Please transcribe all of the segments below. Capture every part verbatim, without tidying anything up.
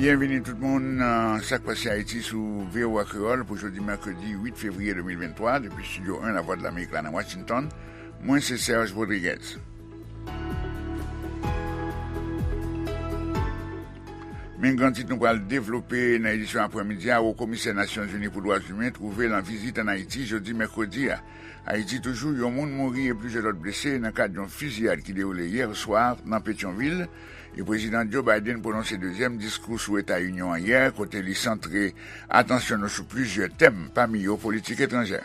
Byenvini tout moun nan Sa k Pase Ayiti sou V O A Kreyòl pou jodi mèkredi uit fevriye de mil venntwa, depi Estidyo en Lavwadlamerik la nan Washington. Mwen se Serge Rodriguez. Men gran tit nou pral devlope nan edisyon aprèmidi a. Wo Komisè Nasyonzini pou Dwa Imen twouve l an vizit ann Ayiti jodi mèkredi a. Ayiti toujou, yon moun mouri e plizyè lòt blese nan kad yon fiziyad ki dewoule yè swa nan Petyonvil, e Prezidan Joe Biden pwononse dezyèm diskou sou Eta Inyon an yè, kote li santre atansyon nou sou plizyè tèm, pami yo politik etranjè.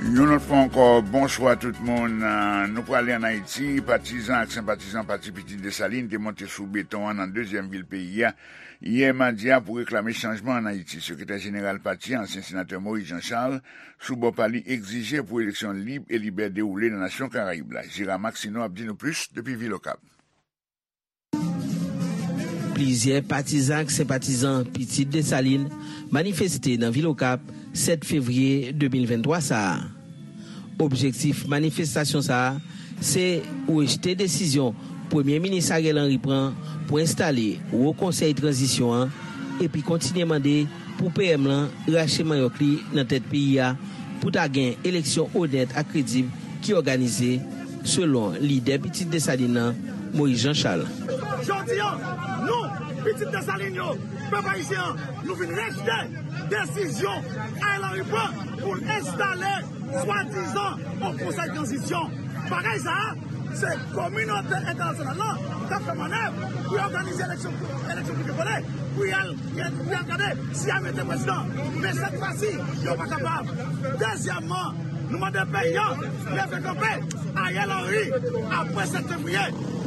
Yon lòt fwa ankò, bonswa tout moun. Ah, nou prale ann Ayiti. Patizan ak senpatizan Pati Pitit Desalin te monte sou beton an nan dezyèm vil peyi a yè madi a pou reklame chanjman ann Ayiti. Sekretè jeneral pati a, ansyen senatè Maurice Jean Charles, sou bò pa li, egzije pou eleksyon lib e libè dewoule nan nasyon Karayib la. Gérard Maxineau ap di nou plis depi vil Okap. Plizyè patizan ak senpatizan Pitit Desalin manifeste nan vil Okap sèt fevriye de mil venntwa sa a. Objektif manifestasyon sa a se rejte desizyon Premye Minis Ariel Henry pran pou enstale Wo Konsèy Tranzisyon an epi kontinye mande pou P M lan rache manyòk li nan tèt peyi a pou ta gen eleksyon onèt ak kredib ki òganize, selon lidè Pitit Desalin nan, Moyiz Jan Chal. Jodi a, nou, Pitit Desalin yo, pèp ayisyen an, nou vin rejte desizyon Ariel Henry pran pou l enstale swadizan yon konsèy tranzisyon. Bagay sa a, se kominote entènasyonal lan k ap fè mannèv pou y òganize eleksyon, eleksyon pou ke vole, pou y al, pou y al gade si y a mete prezidan. Men sèt fwa si, yo pa kapab. Dezyèmman, nou mande peyi an leve kanpe. Ariel Henry, apre sèt fevriye,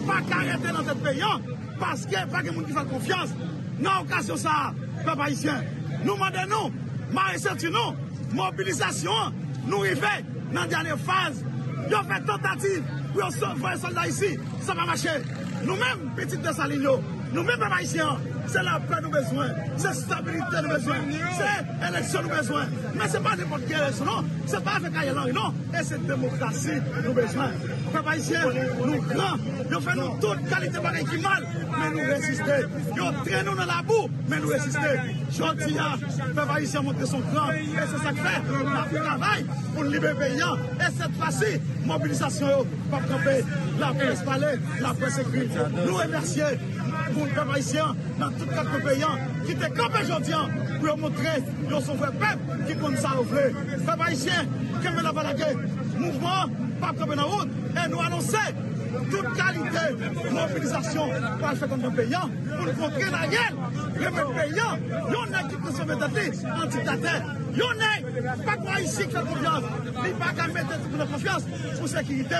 pa ka rete nan tèt peyi an, paske pa gen moun ki fè l konfyans. Nan okazyon sa a, pèp ayisyen, nou mande nou mare senti nou. Mobilizasyon an, nou rive nan dènye faz. Yo fè tantativ pou yo voye sòlda isi, sa pa mache. Nou menm, pitit Desalin yo, nou menm pèp ayisyen an, se lapè nou bezwen, se stabilite nou bezwen, se eleksyon nou bezwen. Men se pa nenpòt ki eleksyon non, se pa avèk Ariel Henry non, e se demokrasi nou bezwen. Pèp ayisyen, nou gran, yo fè nou tout kalite bagay ki mal, men nou reziste. Yo trennen nou nan labou, men nou reziste. Jodi a, pèp ayisyen montre son gran, e se sa k fè n ap travay pou n libere peyi an. E sèt fwa si, mobilizasyon yo p ap kanpe. Laprès pale, laprès ekri. Nou remèsye moun pèp ayisyen an nan tout kat kwen peyi an ki te kanpe jodi a pou yo montre yo se yon vrè pèp ki konn sa yo vle. Pèp ayisyen, kenbe la pa lage. Mouvman an p ap kanpe nan wout e nou anonse tout kalite mobilizasyon pral fèt anndan peyi an. Pou n kontre Ariel, remèt peyi an yon nèg ki transfòme tèt li an diktatè. Yon nèg pa gen ayisyen k fè l konfyans. Li pa ka mete tout moun nan konfyans pou sekirite.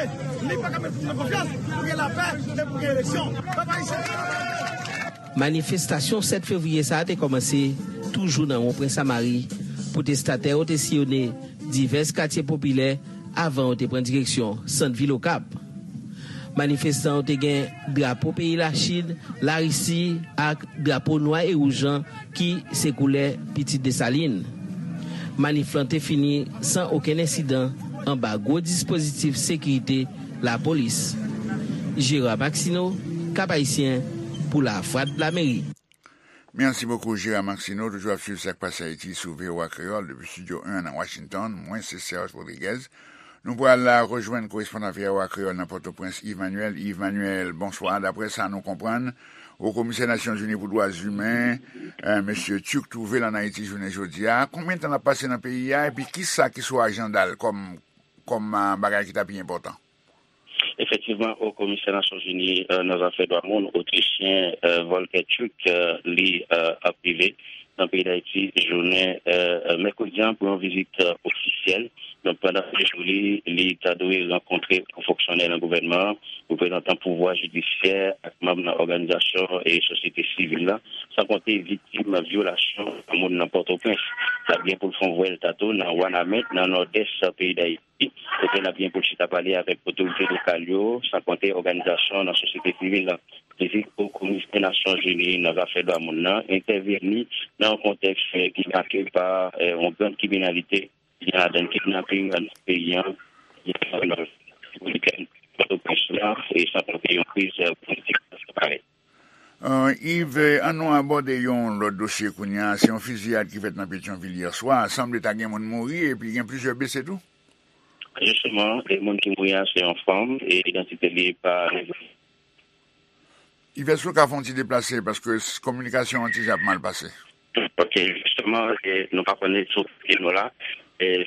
Li pa ka mete tout moun nan konfyans pou gen lapè e pou gen eleksyon. Pèp ayisyen. Manifestasyon sèt fevriye sa a te kòmanse toujou nan Wonpren Samari, pwotestatè yo te siyone divès katye popilè avan yo te pran direksyon sant vil Okap. Manifestan yo te gen drapo peyi Lachin, Larisi ak drapo nwa e wouj lan ki se koulè Pitit Desalin. Manif lan te fini san okenn ensidan anba gwo dispozitif sekirite lapolis. Gérard Maxineau, Cap-Haïtien, pou Lavwadlamerik. Mèsi bokou, Gérard Maxineau. Toujou ap swiv Sa k Pase Ayiti sou V O A Kreyòl depi Estidyo en nan Washington. Mwen se Serge Rodriguez. Nou pral rejwenn korespondan V O A Kreyòl nan Pòtoprens, Yves Manuel. Yves Manuel, bonswa. Daprè sa nou konprann, Wo Komisè Nasyonzini pou Dwa Imen, eh, mesye Turk, twouve l ann Ayiti jounen jodi a. Konbyen tan l ap pase nan peyi a? Epi kisa ki sou ajanda l kòm, kòm, ah, bagay ki ta pi enpòtan? Efektivman, Wo Komisè Nasyonzini, eh, nan zafè dwa moun, Otrichyen, eh, Volker Turk, eh, li, eh, ap rive nan peyi Dayiti jounen, eh, mèkredi an pou yon vizit, eh, ofisyèl. Donk, pandan sejou li, li ta dwe rankontre gwo fonksyonè nan gouvènman an, reprezantan pouvwa jidisyè ak manm nan òganizasyon e sosyete sivil la, san konte viktim vyolasyon dwa moun nan Pòtoprens. L ap gen pou l fè yon vwèl tatou nan Wanament, nan nòdès peyi Dayiti, kote l ap gen pou l chita pale avèk otorite lokal yo, san konte òganizasyon nan sosyete sivil la. Vizit Wo Komisè Nasyonzini nan zafè dwa moun nan entèvini nan yon kontèks, eh, ki make pa, eh, yon grann kriminalite gen ladan kidnaping nan peyi an, gen nan Repiblik Dominiken, Pòtoprens la, e san konte yon kriz, eh, politik ki parèt. Euh, Yves, ann nou abòde yon lòt dosye kounye a. Se yon fiziyad ki fèt nan Petyonvil yè swa. Sanble ta gen moun mouri epi gen plizyè blese tou. Jisteman, e moun ki mouri a se yon fanm e idantite li pa revele. Yves, ou ka fè yon ti deplase paske s- kominikasyon an ti jan ap mal pase. Ok, jisteman, e nou pa konnen sou kote nou la. E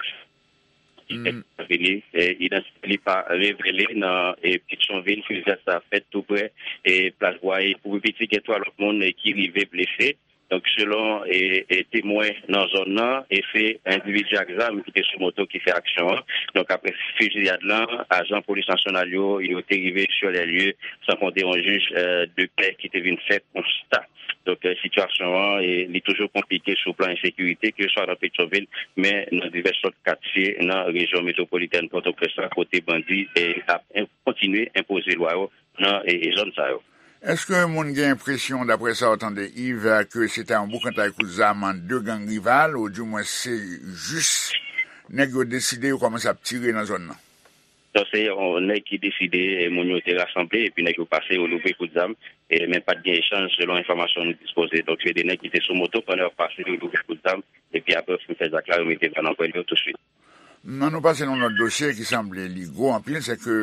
Mm. Vini, e, idantite li pa revele nan, e, Petyonvil, fiziyad sa fèt tou prè, e, Plas Bwaye. Pou pi piti, gen twa lòt moun, e, ki rive blese. Donk, selon, e, e, temwen nan zòn nan, e se endividi ak zam ki te sou moto ki fè aksyon an. Donk, apre fiziyad lan, ajan polis nasyonal yo, yo te rive sur les lieux, san konte yon jij, e, de pè ki te vin fè konsta. Donk, e, sitiyasyon an, e, li toujou konplike sou plan ensekirite, ke swa nan Petyonvil, men nan divès lòt katye nan rejyon metwopolitèn Pòtoprens la, kote bandi, e, ap en- kontinye enpoze lwa yo nan, e, e, zòn sa yo. Èske moun gen enpresyon, daprè sa w tande, Yves, ke se ta yon boukantay kout zam ant de gang rival, oudimwen se jis nèg yo deside, yo kòmanse ap tire nan zòn nan? Donk, se yon nèg ki deside, e, moun yo te rasanble, epi nèg yo pase, yo louvri kout zam, e, men pa t gen echanj, selon enfòmasyon nou dispoze. Donk, se de nèg ki te sou moto, pandan y ap pase, yo louvri kout zam, epi apre, fin fè zak la, yo mete bal nan pwèl yo touswit. Nan nou pase nan lòt dosye ki sanble li gwo anpil, se ke,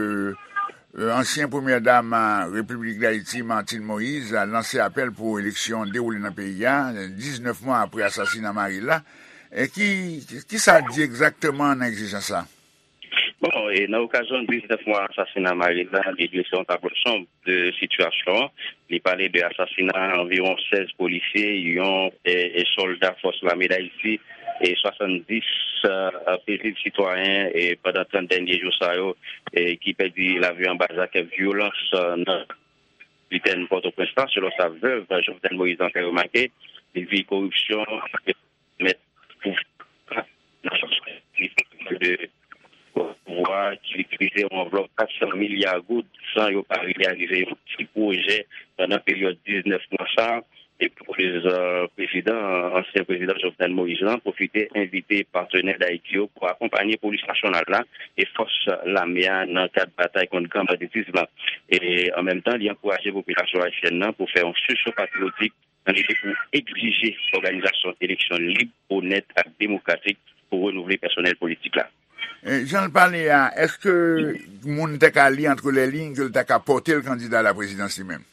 e, ansyen premyè dam, e, Repiblik Dayiti, Martine Moïse, a lanse apèl pou eleksyon dewoule nan peyi a, diznèf mwa apre asasina mari l la. E ki, ki sa di egzakteman nan egzijans sa? Bon, e nan okazyon diznèf mwa asasina mari l la, li drese yon tablo sonb de sitiyasyon an. Li pale de asasina anviwon sèz polisye, yon, e, e, sòlda fòs lame Dayiti, e swasanndis, e, pezib sitwayen, e pandan trant dènye jou sa yo, e ki pèdi lavi anba zak vyolans, e, nan liten Pòtoprens la, selon sa vèv Jovenel Moïse lan fè remake. Li di koripsyon mèt pouvwa nan sans de pouvwa ki itilize yon anvlòp kat san milya goud san yo pa reyalize yon ti pwojè pandan peryòd diznèf mwa sa a. E pou koz, e, prezidan, ansyen prezidan Jovenel Moïse lan pwofite envite patnè Dayiti yo pou akonpanye polis nasyonal la e fòs lame a nan kad batay kont gran banditis lan. E an menm tan, li ankouraje popilasyon ayisyèn nan pou fè yon sisyon patriyotik nan lide pou egzije òganizasyon eleksyon lib, onèt ak demokratik pou renouvle pèsonèl politik la. E, jan l pale a, èske moun te ka li antre lè liy ke l ta ka pòte l kandida a la prezidans li menm?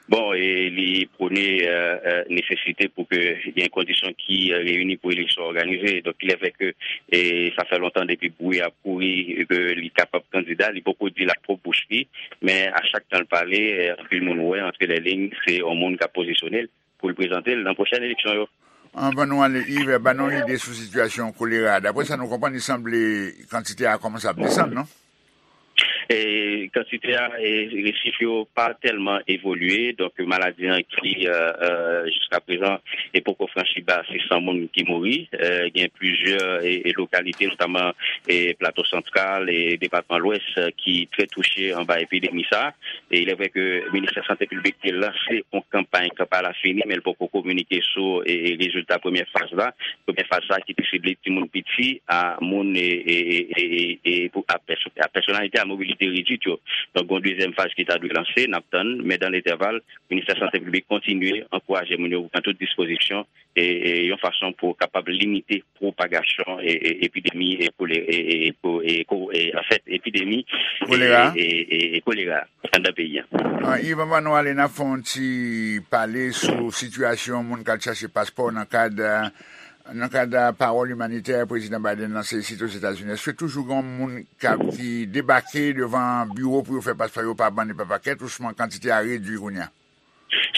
Bon, e li pwone, e, e, nesesite pou ke gen kondisyon ki, e, reyini pou eleksyon òganize. Donk, il est vrai ke, e, sa fè lontan depi bri ap kouri ke li kapab kandida, li poko di l ak pwòp bouch li, men a chak tan l pale, e, anpil moun wè antre lè liy, se yon moun k ap pozisyone l pou l prezante l nan pwochèn eleksyon yo. Anvan nou ale, Yves, ban nou yon ide sou sitiyasyon kolera. Daprè sa nou konprann, li sanble kantite a kòmanse ap desann, non? E kantite a, e, e chif yo pa tèlman evolye. Donk, maladi an ki, e, e, jiska prezan, e poko franchi ba sis san moun ki mouri. E, gen plizyè, e, e lokalite, notaman, e Plato Santral, e depatman Lwès, e, ki trè touche anba epidemi sa a. E il est vrai ke Ministè Sante Piblik te lanse yon kanpay, kanpay la fini, men l poko kominike sou, e, e rezilta premyè faz la. Premyè faz sa ki te sible timoun piti, a moun, e, e, e, e, e, e pou, a pèso-, a pèsonalite a mobilite redwit yo. Donk, gon dezyèm faz ki ta dwe lanse, n ap tann, men dan letèval, Ministè Sante Piblik kontinye ankouraje moun yo pou pran tout dispozisyon, e, e, yon fason pou kapab limite pwopagasyon, e, e, epidemi, e, kolè-, e, e, e, ko-, e, ko-, e, anfèt, epidemi, e, Kolera. E, e, e, e kolera anndan peyi a. Ah, Yves, anvan nou ale, n ap fè yon ti pale sou sitiyasyon moun k al chache paspò nan kad, nan kad pawòl imanitè Prezidan Biden lanse isit Ozetazini. Èske toujou gen moun k ap, ki debake devan biwo pou yo fè paspò yo pa bann e pa pakèt, ousman kantite a redui kounye a?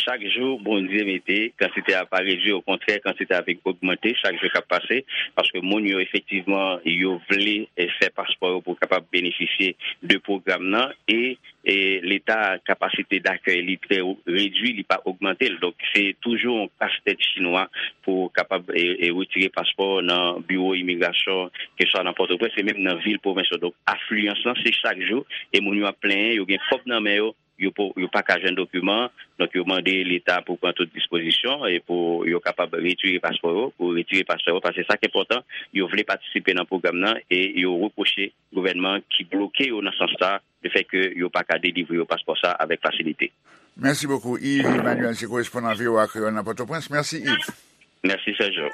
Chak jou Bondye mete, kantite a pa redui, okontrè, kantite a vin ogmante chak jou k ap pase, paske moun yo efektivman, yo vle, eh, fè paspò yo pou kapab benefisye de pwogram nan, e, e Leta kapasite dakèy li trè redui, li pa ogmante l. Donk, se toujou yon kastèt chinwa pou kapab, e, e retire paspò nan biwo imigrasyon, keswa nan Pòtoprens e menm nan vil pwovens yo. Donk, afliyans lan, se chak jou, e moun yo ap plenyen, yo gen kòb nan men yo, yo po- yo pa ka jwenn dokiman. Donk, yo mande Leta pou pran tout dispozisyon e pou yo kapab retire paspò yo, pou retire paspò yo, paske sa ki enpòtan, yo vle patisipe nan pwogram nan e yo repwoche gouvènman ki bloke yo nan sans sa, lefètke yo pa ka delivre yo paspò sa avèk fasilite. Mèsi bokou, Yves Emmanuel, se korespondan V O A Kreyòl nan Pòtoprens. Mèsi, Yves. Mèsi, Sergio.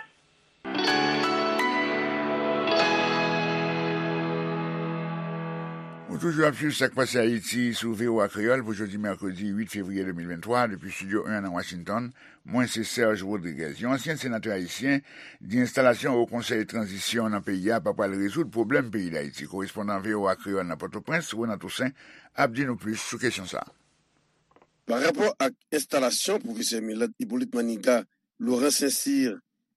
Ou toujou ap swiv Sa k Pase Ayiti sou V O A Kreyòl pou jodi mèkredi uit fevriye de mil venntwa, depi Estidyo en nan Washington. Mwen se Serge Rodriguez. Yon ansyen senatè ayisyen di enstalasyon Wo Konsèy Tranzisyon nan peyi a pa pral rezoud pwoblèm peyi Dayiti. Korespondan V O A Kreyòl nan Pòtoprens, Renan Toussaint, ap di nou plis sou kesyon sa a. Pa rapò ak enstalasyon Pwofesè Milad Hyppolite Maniga, Laurent Saint-Cyr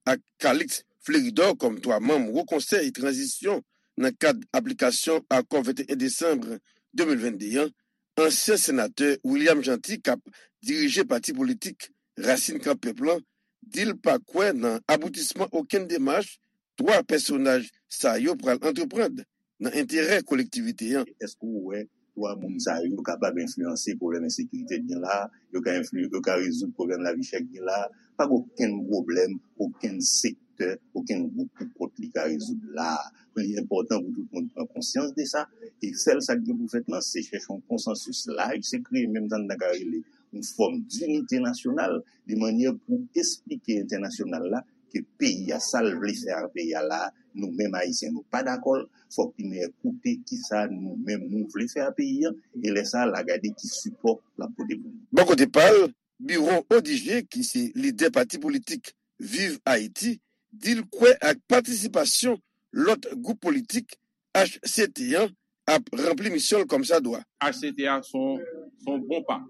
ak Calixte Fleuridor kòm twa manm Wo Konsèy Tranzisyon nan kad aplikasyon Akò venteyen desanm de mil vennde an, ansyen senatè William Jeanty k ap dirije pati politik Rasin Kan Pèp lan di l pa kwè nan aboutisman okenn demach twa pèsonaj sa yo pral antreprann nan enterè kolektivite an. Èske w wè twa moun sa yo kapab enfliyanse pwoblèm ensekirite k gen la a? Yo ka enfli, yo ka rezoud pwoblèm lavi chè k gen la a? Pa gen okenn pwoblèm, okenn sektè, okenn gwoup pou kont li ka rezoud la a. Li enpòtan pou tout moun pran konsyans de sa. E sèl sa k gen pou fèt lan, se chèche yon konsansis laj, se kreye menm sa n ta ka rele yon fòm dinite nasyonal, de mannyè pou esplike entènasyonal la ke peyi a, sa l vle fè ak peyi a la, nou menm Ayisyen, nou pa dakò l. Fòk li men koute kisa nou menm nou vle fè ak peyi a, e lè sa a, l a gade ki sipò l ap pote pou nou. Bò kote pa l, Biron Odigé, ki se lidè pati politik Viv Ayiti, di l kwè ak patisipasyon lòt gwoup politik H C T an ap ranpli misyon l kòmsadwa. H C T a se yon, se yon bon pa,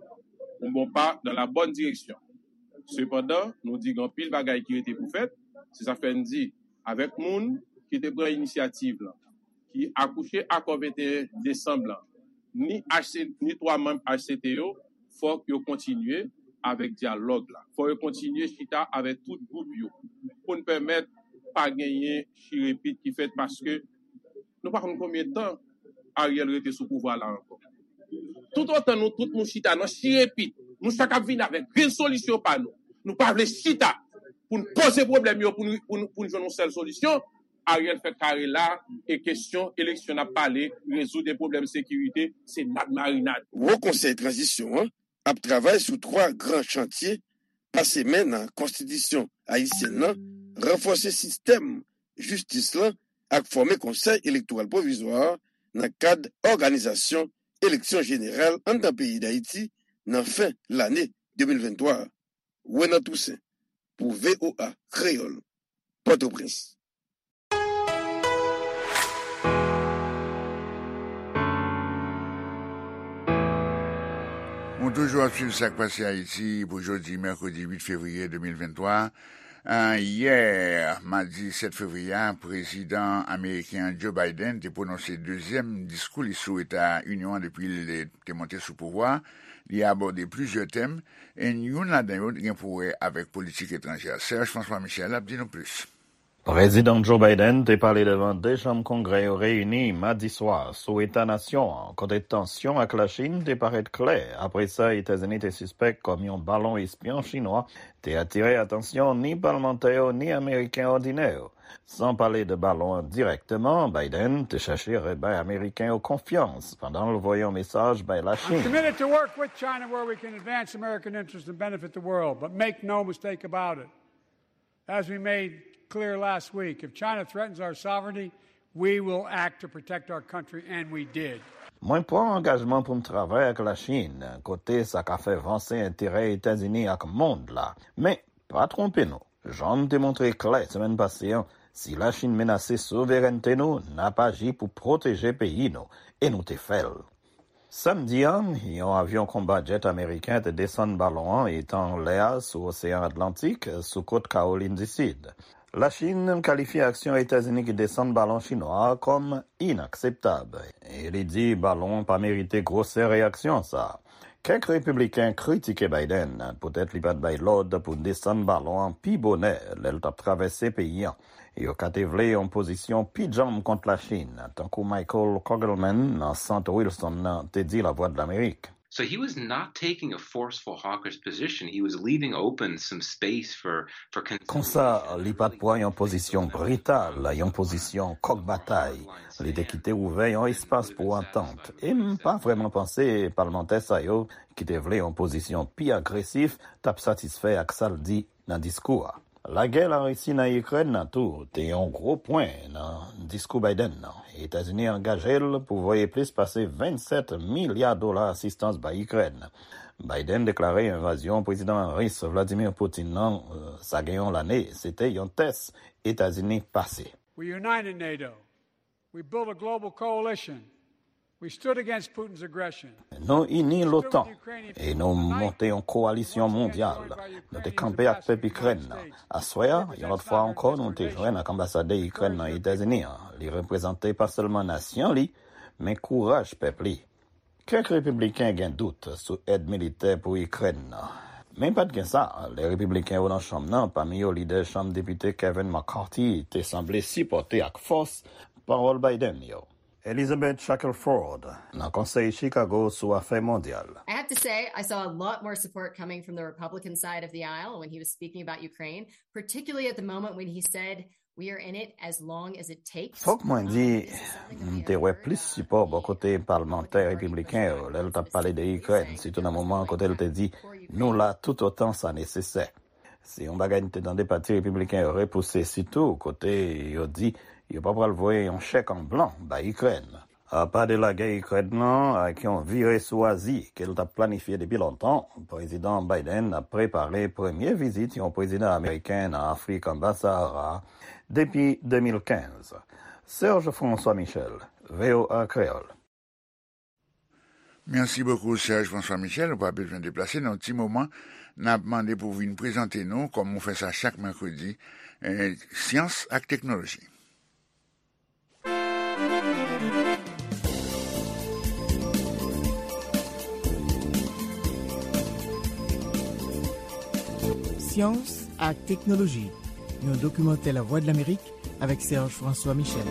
yon bon pa dans la bonne direction. Sepandan, nou di gen anpil bagay ki rete pou fèt. Se sa k fè n di, avèk moun ki te pran inisyativ lan, ki akouche akò venteyen desanm lan, ni H C, ni twa manm H C T yo, fòk yo kontinye avèk dyalòg la. Fòk yo kontinye chita avèk tout gwoup yo pou n pèmèt pa genyen chirepit ki fèt, paske nou pa konn konbyen tan Ariel rete sou pouvwa la ankò. Toutotan nou tout nou chita nan chirepit, nou chak ap vin avèk rezolisyon pa nou. Nou pa vle chita pou n poze pwoblèm yo, pou n, pou n, pou n jwenn yon sèl solisyon. Ariel fè kare la, e kesyon eleksyon n ap pale, rezoud e pwoblèm sekirite, se nad marinad. Wo Konsèy Tranzisyon an ap travay sou twa gran chantye pase men nan konstitisyon ayisyèn nan, ranfòse sistèm jistis lan ak fòme Konsèy Elektoral Pwovizwa a nan kad òganizasyon eleksyon jeneral anndan peyi Dayiti nan fen lane de mil venntwa a. Renan Toussaint, pou V O A Kreyòl, Pòtoprens. Nou toujou ap swiv Sa k Pase Ayiti pou jodi, mèkredi uit fevriye de mil venntwa. Ah, yè, madi sèt fevriye a, prezidan ameriken an Joe Biden te pwononse dezyèm diskou li sou Eta Inyon an depi l te monte sou pouvwa a. Li abòde plizyè tèm, e youn ladan yo gen pou wè avèk politik etranjè. Serge François Michel ap di nou plis. Prezidan Joe Biden te pale devan de chanm Kongrè yo reyini madi swa sou eta nasyon an, kote tansyon ak Lachin te parèt klè apre sa Etazini te sispèk kòm yon balon espyon chinwa te atire atansyon ni palmantè yo ni Ameriken òdinè yo. San pale de balon an dirèkteman, Biden te chèche rebay Ameriken yo konfyans pandan l voye yon mesaj bay Lachin. I'm committed to work with China where we can advance American interests and benefit the world, but make no mistake about it. As we made clear last week, if China threatens our sovereignty, we will act to protect our country, and we did. Mwen pran angajman pou m travay ak Lachin kote sa ka fè vanse enterè Etazini ak mond la. Men, pa twonpe nou. Jan m te montre klè semèn pase an, si Lachin menase souverènte nou, n ap aji pou pwoteje peyi nou, e nou te fè l. Samdi a, yon avyon konba jet ameriken te desann balon an etan anlè a sou Oseyan Atlantik, sou kot Kawolin di Sid. Lachin kalifye aksyon Etazini ki desann balon chinwa a kòm inakseptab, e li di balon an pa merite gwosè reyaksyon sa a. Kèk repibliken kritike Biden poutèt li pa t bay lòd pou desann balon an pi bonè lè l t ap travèse peyi an. Yo ka te vle yon pozisyon pi djanm kont Lachin, tankou Michael Kogelman nan Sant Wilson nan te di Lavwadlamerik. So he was not taking a forceful hawkish position. He was leaving open some space for, for Konsa, li pa t pran yon pozisyon brital, yon pozisyon kòk batay. Li te kite ouvè yon espas pou antant. E m pa vrèman panse palmantè sa yo, ki te vle yon pozisyon pi agresif, t ap satisfè ak sa l di nan diskou a. Lagè Larisi nan Ikrèn nan tou te yon gwo pwen nan diskou Biden nan. Etazini angaje l pou voye plis pase vennsèt milya dola asistans bay Ikrèn. Biden deklare envazyon prezidan ris Vladimir Putin nan, euh, sa gen yon lane, se te yon tès Etazini pase. We united NATO. We built a global coalition. We stood against Putin's aggression. Nou ini l'otan e nou monte yon kowalisyon mondyal. Nou te kanpe ak pèp Ikrèn nan. Aswè a, yon lòt fwa ankò, nou te jwenn ak anbasadè Ikrèn nan Etazini an. Li reprezante pa sèlman nasyon li, men kouraj pèp li. Kèk repibliken gen dout sou èd militè pou Ikrèn nan. Men pa t gen sa, lè repibliken yo nan chanm nan, pami yo lidè chanm depite Kevin McCarthy, te sanble sipòte ak fòs pawòl Biden yo. Elizabeth Shackelford, nan Konsèy Chicago sou Afè Mondyal. I have to say, I saw a lot more support coming from the Republican side of the aisle when he was speaking about Ukraine, particularly at the moment when he said, "We are in it as long as it takes." Fòk mwen di, m te wè plis sipò bò kote palmantè repibliken yo lè l t ap pale de Ikrèn, sitou nan moman kote l te di, "Nou la toutotan sa nesesè." Se yon bagay n te tande pati repibliken yo repouse, sitou kote yo di yo pa pral voye yon chèk an blan bay Ikrèn. Apa de lagè Ikrèn nan ak yon vire sou Azi ke l t ap planifye depi lontan, Prezidan Biden ap prepare premye vizit yon prezidan ameriken nan Afrik anba Sahara depi de mil kenz. Serge François Michel, V O A Kreyòl. Mèsi bokou, Serge François Michel. Ou pa bezwen deplase nan yon ti moman. N ap mande pou w vin prezante nou, kòm ou fè sa chak mèkredi, eh, syans ak teknoloji. Syans ak teknoloji, yon dokimantè Lavwadlamerik avèk Serge François Michel.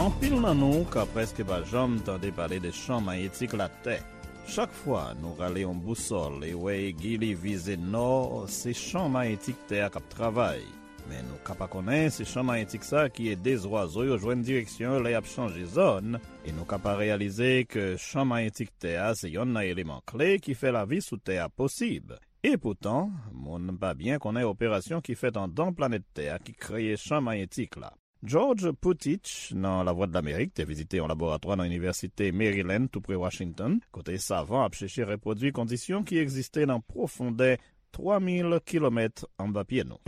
Anpil nan nou ka prèske pa janm tande pale de chan mayetik Latè. Chak fwa nou rale yon bousòl e wè egi li vize nò, se chan mayetik Tè a k ap travay. Men nou ka pa konnen se chan mayetik sa a ki ede zwazo yo jwenn direksyon yo lè y ap chanje zòn, e nou ka pa reyalize ke chan mayetik Tè a se yonn nan eleman kle ki fè lavi sou Tè a posib. Epoutan, moun pa byen konnen operasyon ki fèt anndan planèt Tè a ki kreye chan mayetik la. George Putich, nan Lavwadlamerik, te vizite yon laboratwa nan Inivèsite Maryland, toupre Washington, kote savan ap chèche repwodui kondisyon ki egziste nan pwofondè twa mil kilomèt anba pye nou.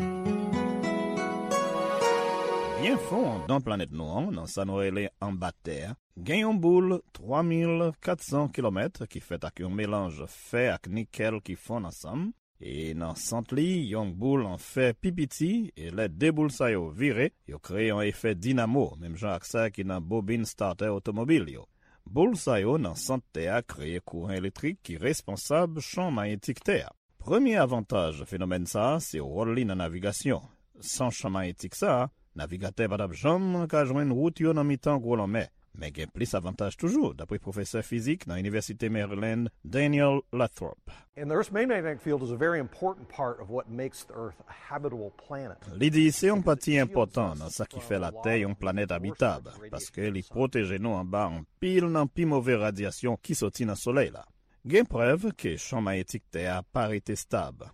Byen fon anndan planèt nou an, nan sa nou rele anba Tè a, gen yon boul twa mil kat san kilomèt ki fèt ak yon melanj fè ak nikèl ki fonn ansanm, e nan sant li, yon boul an fè pi piti, e lè de boul sa yo vire, yo kreye yon efè dinamo, menm jan ak sa ki nan bobin startè otomobil yo. Boul sa yo nan sant Tè a kreye kouran elektrik ki responsab chan mayetik Tè a. Premye avantaj fenomèn sa a se wòl li nan navigasyon. San chan mayetik sa a, navigatè pa t ap janm ka jwenn wout yo nan mitan gwo lanmè. Men gen plis avantaj toujou, dapre pwofesè fizik nan Inivèsite Maryland, Daniel Lathrop. And the Earth's magnetic field is a very important part of what makes the Earth a habitable planet. Li di se yon pati enpòtan nan sa ki fè Latè yon planèt abitab, paske li pwoteje nou anba anpil nan pi move radyasyon ki soti nan Solèy la. Gen prèv ke chan mayetik Tè a pa rete stab.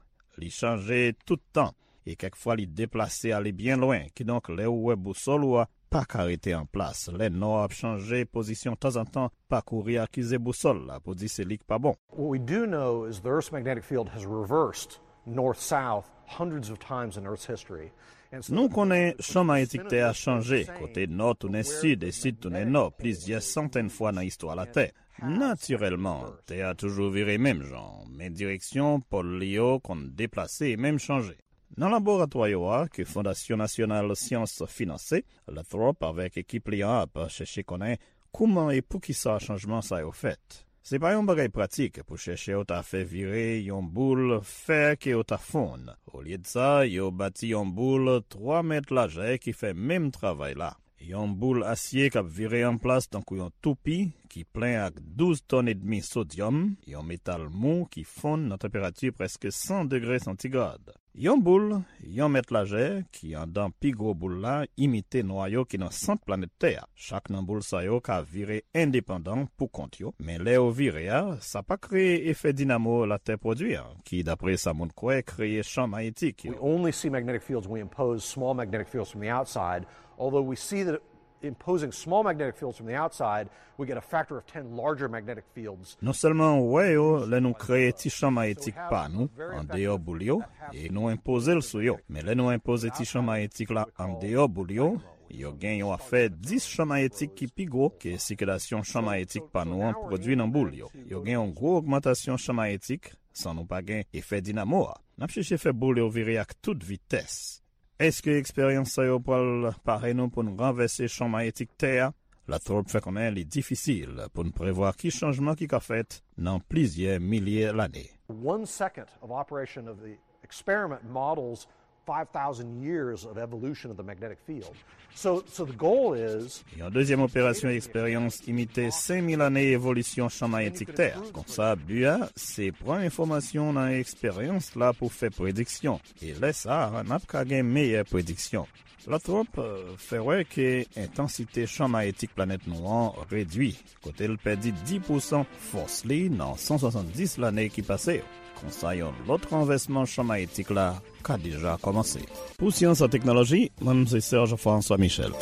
Li chanje tout tan, e kèk fwa li deplase ale byen lwen, kidonk lè ou wè bousòl ou a pa ka rete an plas. Lè nò a ap chanje pozisyon tanzantan, pa kouri akize bousòl la pou di se li k pa bon. What we do know is the Earth's magnetic field has reversed north-south hundreds of times in Earth's history. And so Nou konnen chan mayetik Tè a chanje, kote nò tounen sid e sid tounen nò plizyè santèn fwa nan istwa Latè. Natirèlman, Tè a toujou vire menm jan, men direksyon pòl li yo konn deplase e menm chanje. Nan laboratwa yo a, ke Fondasyon Nasyonal Syans finanse, Lathrop avèk ekip li an ap chèche konnen kouman e poukisa chanjman sa yo fèt. Se pa yon bagay pratik pou chèchè yo ta fè vire yon boul fè ke yo ta fonn. Olyedsa, yo bati yon boul twa mèt lajè ki fè menm travay la. yon boul asye k ap vire an plas tankou yon toupi ki plen ak douz tòn edmi sodyòm, yon metal mou ki fonn nan tanperati prèske san degre santigrad. Yon boul, yon mèt lajè, ki anndan pi gwo boul la, imite nwayo ki nan sant planèt Tè a. Chak nan boul sa yo ka vire endepandan pou kont yo, men lè yo vire a, sa pa kreye efè dinamo Latè pwodui a, ki, dapre sa moun kwè, kreye chan mayetik yo. We only see magnetic fields when we impose small magnetic fields from the outside, although we see that imposing small magnetic fields from the outside, we get a factor of ten larger magnetic fields. Non sèlman w wè yo lè nou kreye ti chan mayetik pa nou andeyò boul yo, e nou enpoze l sou yo. Men lè nou enpoze ti chan mayetik la andeyò boul yo, yo gen yon afè dis chan mayetik ki pi gwo ke sikilasyon chan mayetik pa nou an pwodui nan boul yo. Yo gen yon gwo ogmantasyon chan mayetik san nou pa gen efè dinamo a. N ap chèche fè boul yo vire ak tout vitès. Èske eksperyans sa yo pral pare nou pou n ranvèse chan mayetik Tè a? Latrobe fè konnen li difisil pou n prevwa ki chanjman ki ka fèt nan plizyè milye lane. One second of operation of the experiment models five thousand years of evolution of the magnetic field. So, so the goal is Yon dezyèm operasyon eksperyans imite senk mil ane evolisyon chan mayetik Tè a. Konsa, bi a, se pran enfòmasyon nan eksperyans la pou fè prediksyon. E lè sa a, n ap ka gen meyè prediksyon. Latrobe, euh, fè wè ke entansite chan mayetik planèt nou an redui, kote l pèdi dis pousan fòs li nan san swasanndis lane ki pase yo. Konsa, yon lòt ranvèsman chan mayetik la ka deja kòmanse. Pou Syans ak Teknoloji, mwen se Serge François Michel.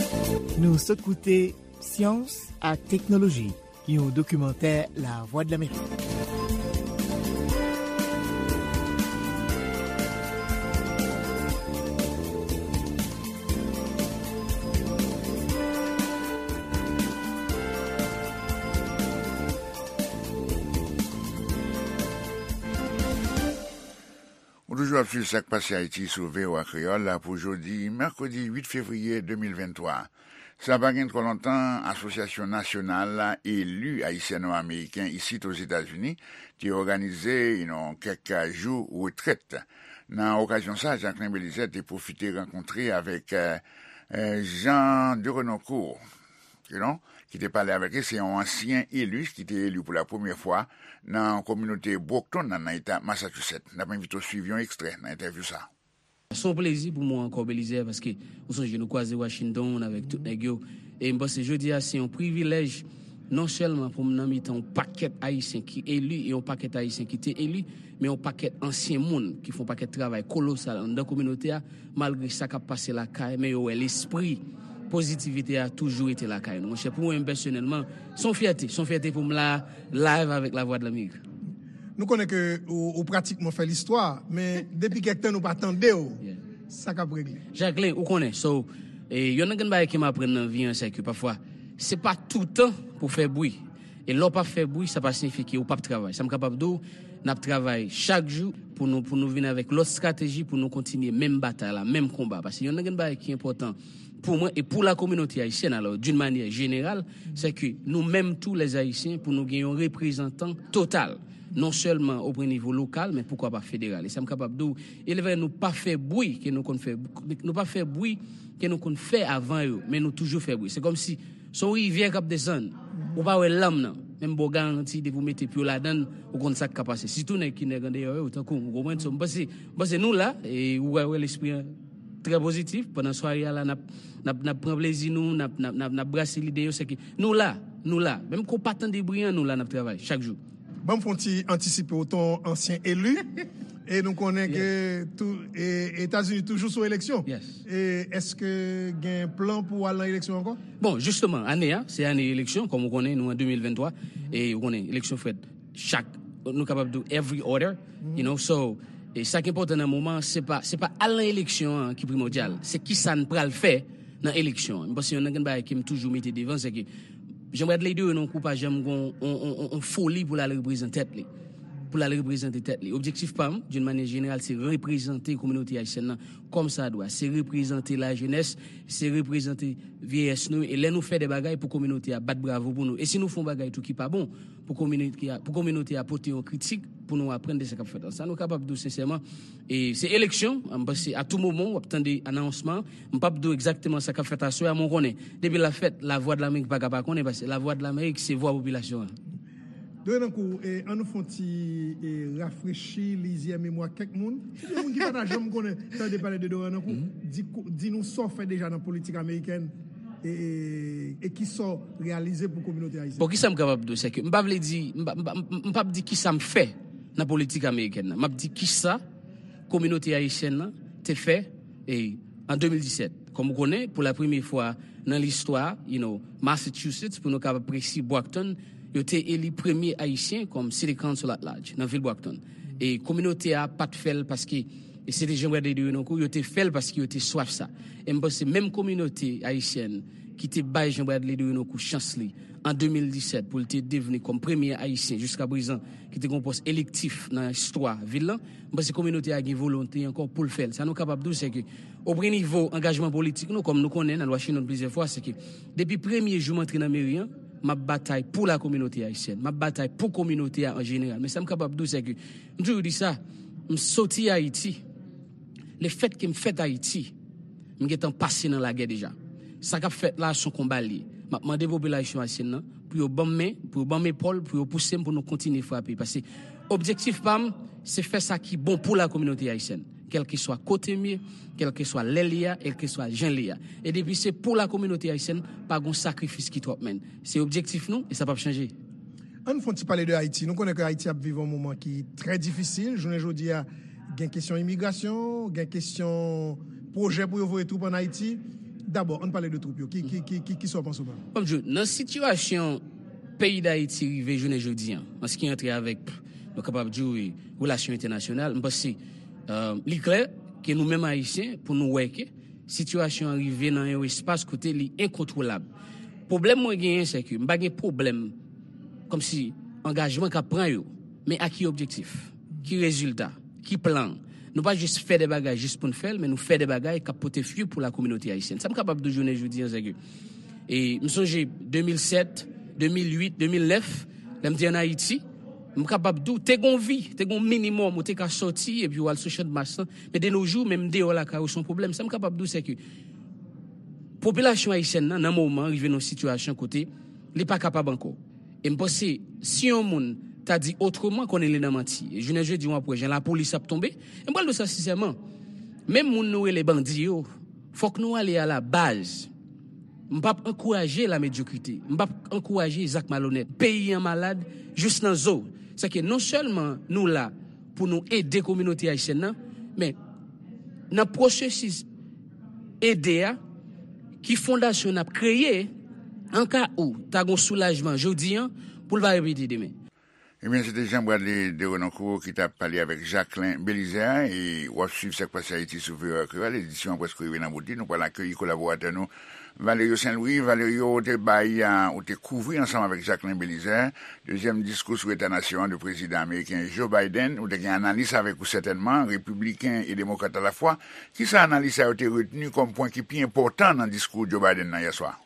Nou sot koute Syans ak Teknoloji, yon dokimantè Lavwadlamerik. Ou toujou ap swiv Sa k Pase Ayiti sou V O A Kreyòl pou jodi mèkredi uit fevriye de mil venntwa. Sa pa gen twò lontan, Asosyasyon Nasyonal Eli Ayisyano-Ameriken isit Ozetazini te òganize yon kèk jou retrèt. Nan okazyon sa, Jacquelin Belizaire te pwofite rankontre avèk, eh, eh, Jean de Renoncourt, you know, ki te pale avèk li. Se yon ansyen eli ki te eli pou la premyè fwa nan kominote Brockton nan, nan eta Massachusetts. N ap envite w swiv yon ekstrè nan entèvyou sa. Se yon plezi pou mwen ankò, Belizaire, paske ou sonje nou kwaze Washington avèk tout nèg yo. E m panse jodi a se yon privilèj non sèlman pou m nan mitan yon pakèt Ayisyen ki eli e yon pakèt Ayisyen ki te eli, men yon pakèt ansyen moun ki fè yon pakèt travay kolosal anndan kominote a, malgre sa k ap pase lakay, men yo wè lespri pozitivite a toujou rete lakay nou. Monchè, pou mwen menm pèsonèlman, se yon fyète, se yon fyète pou m la, live avèk Lavwadlamerik. Nou konnen ke ou, ou pratikman fè listwa, men depi kèk tan nou pa tande w. Yeah. Sa k ap regle? Jacquelin, ou konnen, so, e, yonn nan grenn bagay ke m aprann nan vi an, se ke pafwa, se pa toutan pou fè bri. E lè w pa fè bri, sa pa siyifye ke ou p ap travay. Sa m kapab di w, n ap travay chak jou pou nou, pou nou vin avèk lòt estrateji pou nou kontinye menm batay la, menm konba. Paske yonn nan grenn bagay ki enpòtan pou mwen e pou la kominote ayisyèn, alò, d'une manière générale, se ke nou menm tou, lè Ayisyen, pou nou gen yon reprezantan total, non sèlman o pwen nivo lokal, men poukwa pa federal. E sa m kapab di w, e lè nou pa fè bri ke nou konn fè, nou pa fè bri ke nou konn fè avan yo, men nou toujou fè bri. Se kòmsi se yon rivyè k ap desann. Ou pa wè lanm nan. Men m ba w garanti, depi w mete pye w ladan l, ou konn sa k ka pase. Sitou nèg ki nèg andeyò yo, tankou m, ou konprann? So, m panse, m panse nou la, e ou wè, wè lespri an trè pozitif. Pandan sware a la, n ap, n ap, n ap pran plezi nou, n ap, n ap, n ap, n ap brase lide yo, se ke nou la, nou la. Menm ke w pa tande bri an, nou la, n ap travay chak jou. Ban m fè yon ti antisipe w, ton ansyen eli. E nou konnen ke tou, e, Etazini toujou sou eleksyon. Yes. E èske gen plan pou w al nan eleksyon ankò? Bon, jisteman, ane a, se ane eleksyon, kòm ou konnen, nou an de mil venntwa, e ou konnen, eleksyon fèt chak, nou kapab di every other, you know, so, e sa ki enpòtan nan moman an, se pa, se pa al nan eleksyon an ki primòdyal, se kisa n pral fè nan eleksyon an. M panse yonn nan grenn bagay ke m toujou mete devan, se ke Jean Bradley Durineau pa janm gon on, on, on, on foli pou l al reprezante tèt li. Pou l al reprezante tèt li. Objektif pa m, d'une manière générale, se reprezante kominote ayisyèn nan kòmsadwa. Se reprezante lajenès, se reprezante vyeyès nou. E lè nou fè de bagay pou kominote a bat bravo pou nou. E si nou fè yon bagay tou ki pa bon, pou kominote a, pou kominote a pote yon kritik, pou nou aprann de sa k ap fèt la. Sa nou kapab di w sensèman, e se eleksyon, m panse a tou moman w ap tande anonsman, m p ap di w egzakteman sa k ap fèt aswè a, men w konnen, depi l ap fèt, Lavwadlamerik pa ka pa konnen, paske Lavwadlamerik se vwa popilasyon an. Doyen Ankou, e, an nou fè yon ti, e, rafrechi lizyè memwa kèk moun. Se de moun ki pa ta janm konnen tande pale de Doyen Ankou. Di, di nou sa w fè deja nan politik amerikèn e, e, e ki sa w reyalize pou kominote ayisyèn. Bon, ki sa m kapab di w, se ke m pa vle di, m pa, m pa, m, m p ap di ki sa m fè nan politik amerikèn nan. M ap di ki sa kominote ayisyèn nan te fè, e, an de mil disèt. Kòm ou konnen, pou la premye fwa nan listwa, you know, Massachusetts, pou nou kapab presi, Brockton, yo te eli premye Ayisyen kòm City Council at Large nan vil Brockton. E kominote a pa t fè l paske, e se te Jean Bradley Doyen Ankou, yo te fè l paske yo te swaf sa. E m panse menm kominote ayisyèn ki te bay Jean Bradley Doyen Ankou chans li an de mil disèt pou l te devni kòm premye Ayisyen jiska prezan ki te gen yon pòs elektif nan istwa vil lan, m panse kominote a gen volonte ankò pou l fè l. Sa nou kapab di w, se ke, o premye nivo angajman politik nou, kòm nou konnen, n al Washington plizyè fwa, se ke depi premye jou m antre nan meri an, m ap batay pou la kominote ayisyèn. M ap batay pou kominote a an jeneral. Men sa m kapab di w, se ke, m toujou di sa, m soti Ayiti. Lefètke m fèt Ayiti, m gentan pase nan lagè deja. Sa k ap fèt la, se yon konba l ye. M ap mande popilasyon ayisyèn nan pou yo ban m men, pou yo ban m epòl, pou yo pouse m pou nou kontinye frape. Paske objektif pa m, se fè sa ki bon pou la kominote ayisyèn. Kèlkeswa kote m ye, kèlkeswa lè l ye a, kèlkeswa jan l ye a. E depi se pou la kominote ayisyèn, pa gon sakrifis ki twòp, menn. Se objektif nou, e sa p ap chanje. An n fè yon ti pale de Ayiti. Nou konnen ke Ayiti ap viv yon moman ki trè difisil. Jounen jodi a, gen kesyon imigrasyon, gen kesyon pwojè pou yo voye twoup ann Ayiti. Dabò, an n pale de twoup yo. Ki, ki, ki, ki, ki sa w panse w pa? Kòm di w, nan sitiyasyon peyi Dayiti rive jounen jodi an, an se ki antre avèk, nou kapab di w, relasyon entènasyonal, m panse, euh, li klè ke nou menm Ayisyen, pou nou wè ke sitiyasyon an rive nan yon espas kote li enkontwolab. Pwoblèm mwen genyen, se ke m pa gen pwoblèm kòmsi angajman k ap pran yo, men a ki objektif? Ki rezilta? Ki plan? Nou pa jis fè de bagay jis pou n fè l, men nou fè de bagay k ap pote fwi pou la kominote ayisyèn. Sa m kapab di w jounen jodi an, se ke, e m sonje de mil sèt, de mil uit, de mil nèf, lè m te ann Ayiti, m kapab di w, te gon vi, te gon minimòm, ou te ka sòti epi w al sou Chanmas lan, men de nos jours, menm deyò lakay ou se yon pwoblèm. Sa m kapab di w, se ke popilasyon ayisyèn nan, nan moman, rive nan yon sitiyasyon kote li pa kapab ankò. E m panse, si yon moun ta di otreman, konnen li nan manti. E jounen jodi, w ap wè jan lapolis ap tonbe. E m pral di w sa sensèman. Menm moun nou rele bandi yo, fòk nou ale a la baz. M p ap ankouraje la medyokrite. M p ap ankouraje zak malonèt. Peyi an malad jis nan zo. Sèke non sèlman nou la pou nou ede kominote ayisyèn nan, men nan pwosesis ede a, ki fondasyon n ap kreye, an ka ou ta gon soulajman jodi an, pou l pa repete demen. Ebyen, se te Jean Bradley Derenoncourt ki t ap pale avèk Jacquelin Belizaire, e w ap swiv Sa k Pase Ayiti sou V O A Kreyòl, edisyon an prèske rive nan bout li, nou pral akeyi kolaboratè nou, Valerio Saint-Louis. Valerio, ou te bay, a, ou te kouvri ansanm avèk Jacquelin Belizaire, dezyèm diskou sou eta nasyon an de prezidan ameriken Joe Biden. Ou te gen analis avèk ou sètènman, repibliken e demokrat alafwa. Kisa analis sa yo te retni kòm pwen ki pi enpòtan nan diskou Joe Biden nan yèswa?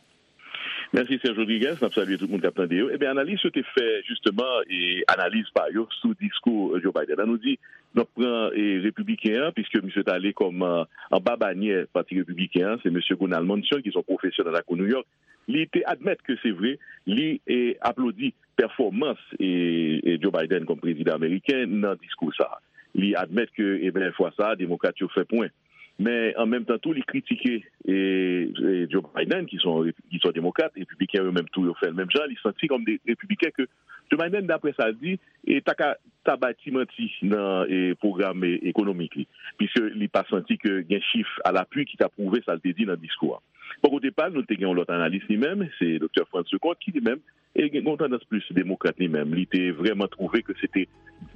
Mèsi, Serge Rodriguez. N ap salye tout moun k ap tande yo. Ebyen, analis yo te fè, jisteman, e, analiz pa yo sou diskou Joe Biden. An nou di, n ap pran, e, repibliken an, piske misye t ale kòm, a, anba banyè Pati Repibliken an, se mesye Gunal Mansion, ki se yon pwofesè nan lakou New York. Li te admèt ke se vre, li, e, aplodi pèfòmans, e, e, Joe Biden kòm prezidan ameriken nan diskou sa a. Li admèt ke, ebyen, fwa sa a, demokrat yo fè pwen. Men, an menm tan tou, li kritike, e, e, Joe Biden, ki se yon, ki se yon demokrat, repibliken yo menm tou, yo fè l menm jan. Li santi kòm de repibliken ke Joe Biden, daprè sa l di, e, ta ka, ta bay ti manti nan, e, pwogram, e, ekonomik li, piske li pa santi ke gen chif alapui ki ta pwouve sa l te di nan diskou a. Bò kote pa l, nou te gen yon lòt analis li menm, se Doktè Franz Leconte, ki li menm, e, gen yon tandans plis demokrat li menm. Li te vrèman twouve ke se te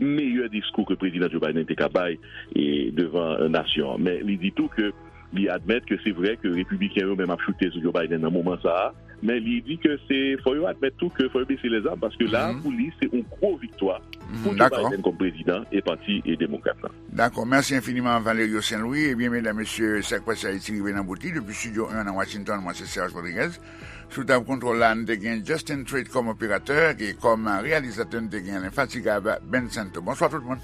meyè diskou ke prezidan Joe Biden te ka bay, e, devan nasyon an. Men li di tou ke Li admèt ke se vrè ke repibliken yo menm ap choute sou Joe Biden nan moman sa a, men li di ke se, fò yo admèt tou ke fò yo bese lèzam, paske la, pou li, se yon gwo viktwa pou Joe Biden kòm prezidan e pati e demokrat la. Dakò. Mèsi enfiniman, Valerio Saint Louis. Ebyen, medam, mesye, Sa k Pase Ayiti rive nan bout li. Depi Studio en nan Washington, mwen se Serge Rodriguez. Sou tab kontwòl la, n te gen Justin Treat kòm operatè, e kòm reyalizatè, n te gen lenfatigab Ben Santo. Bonswa tout moun.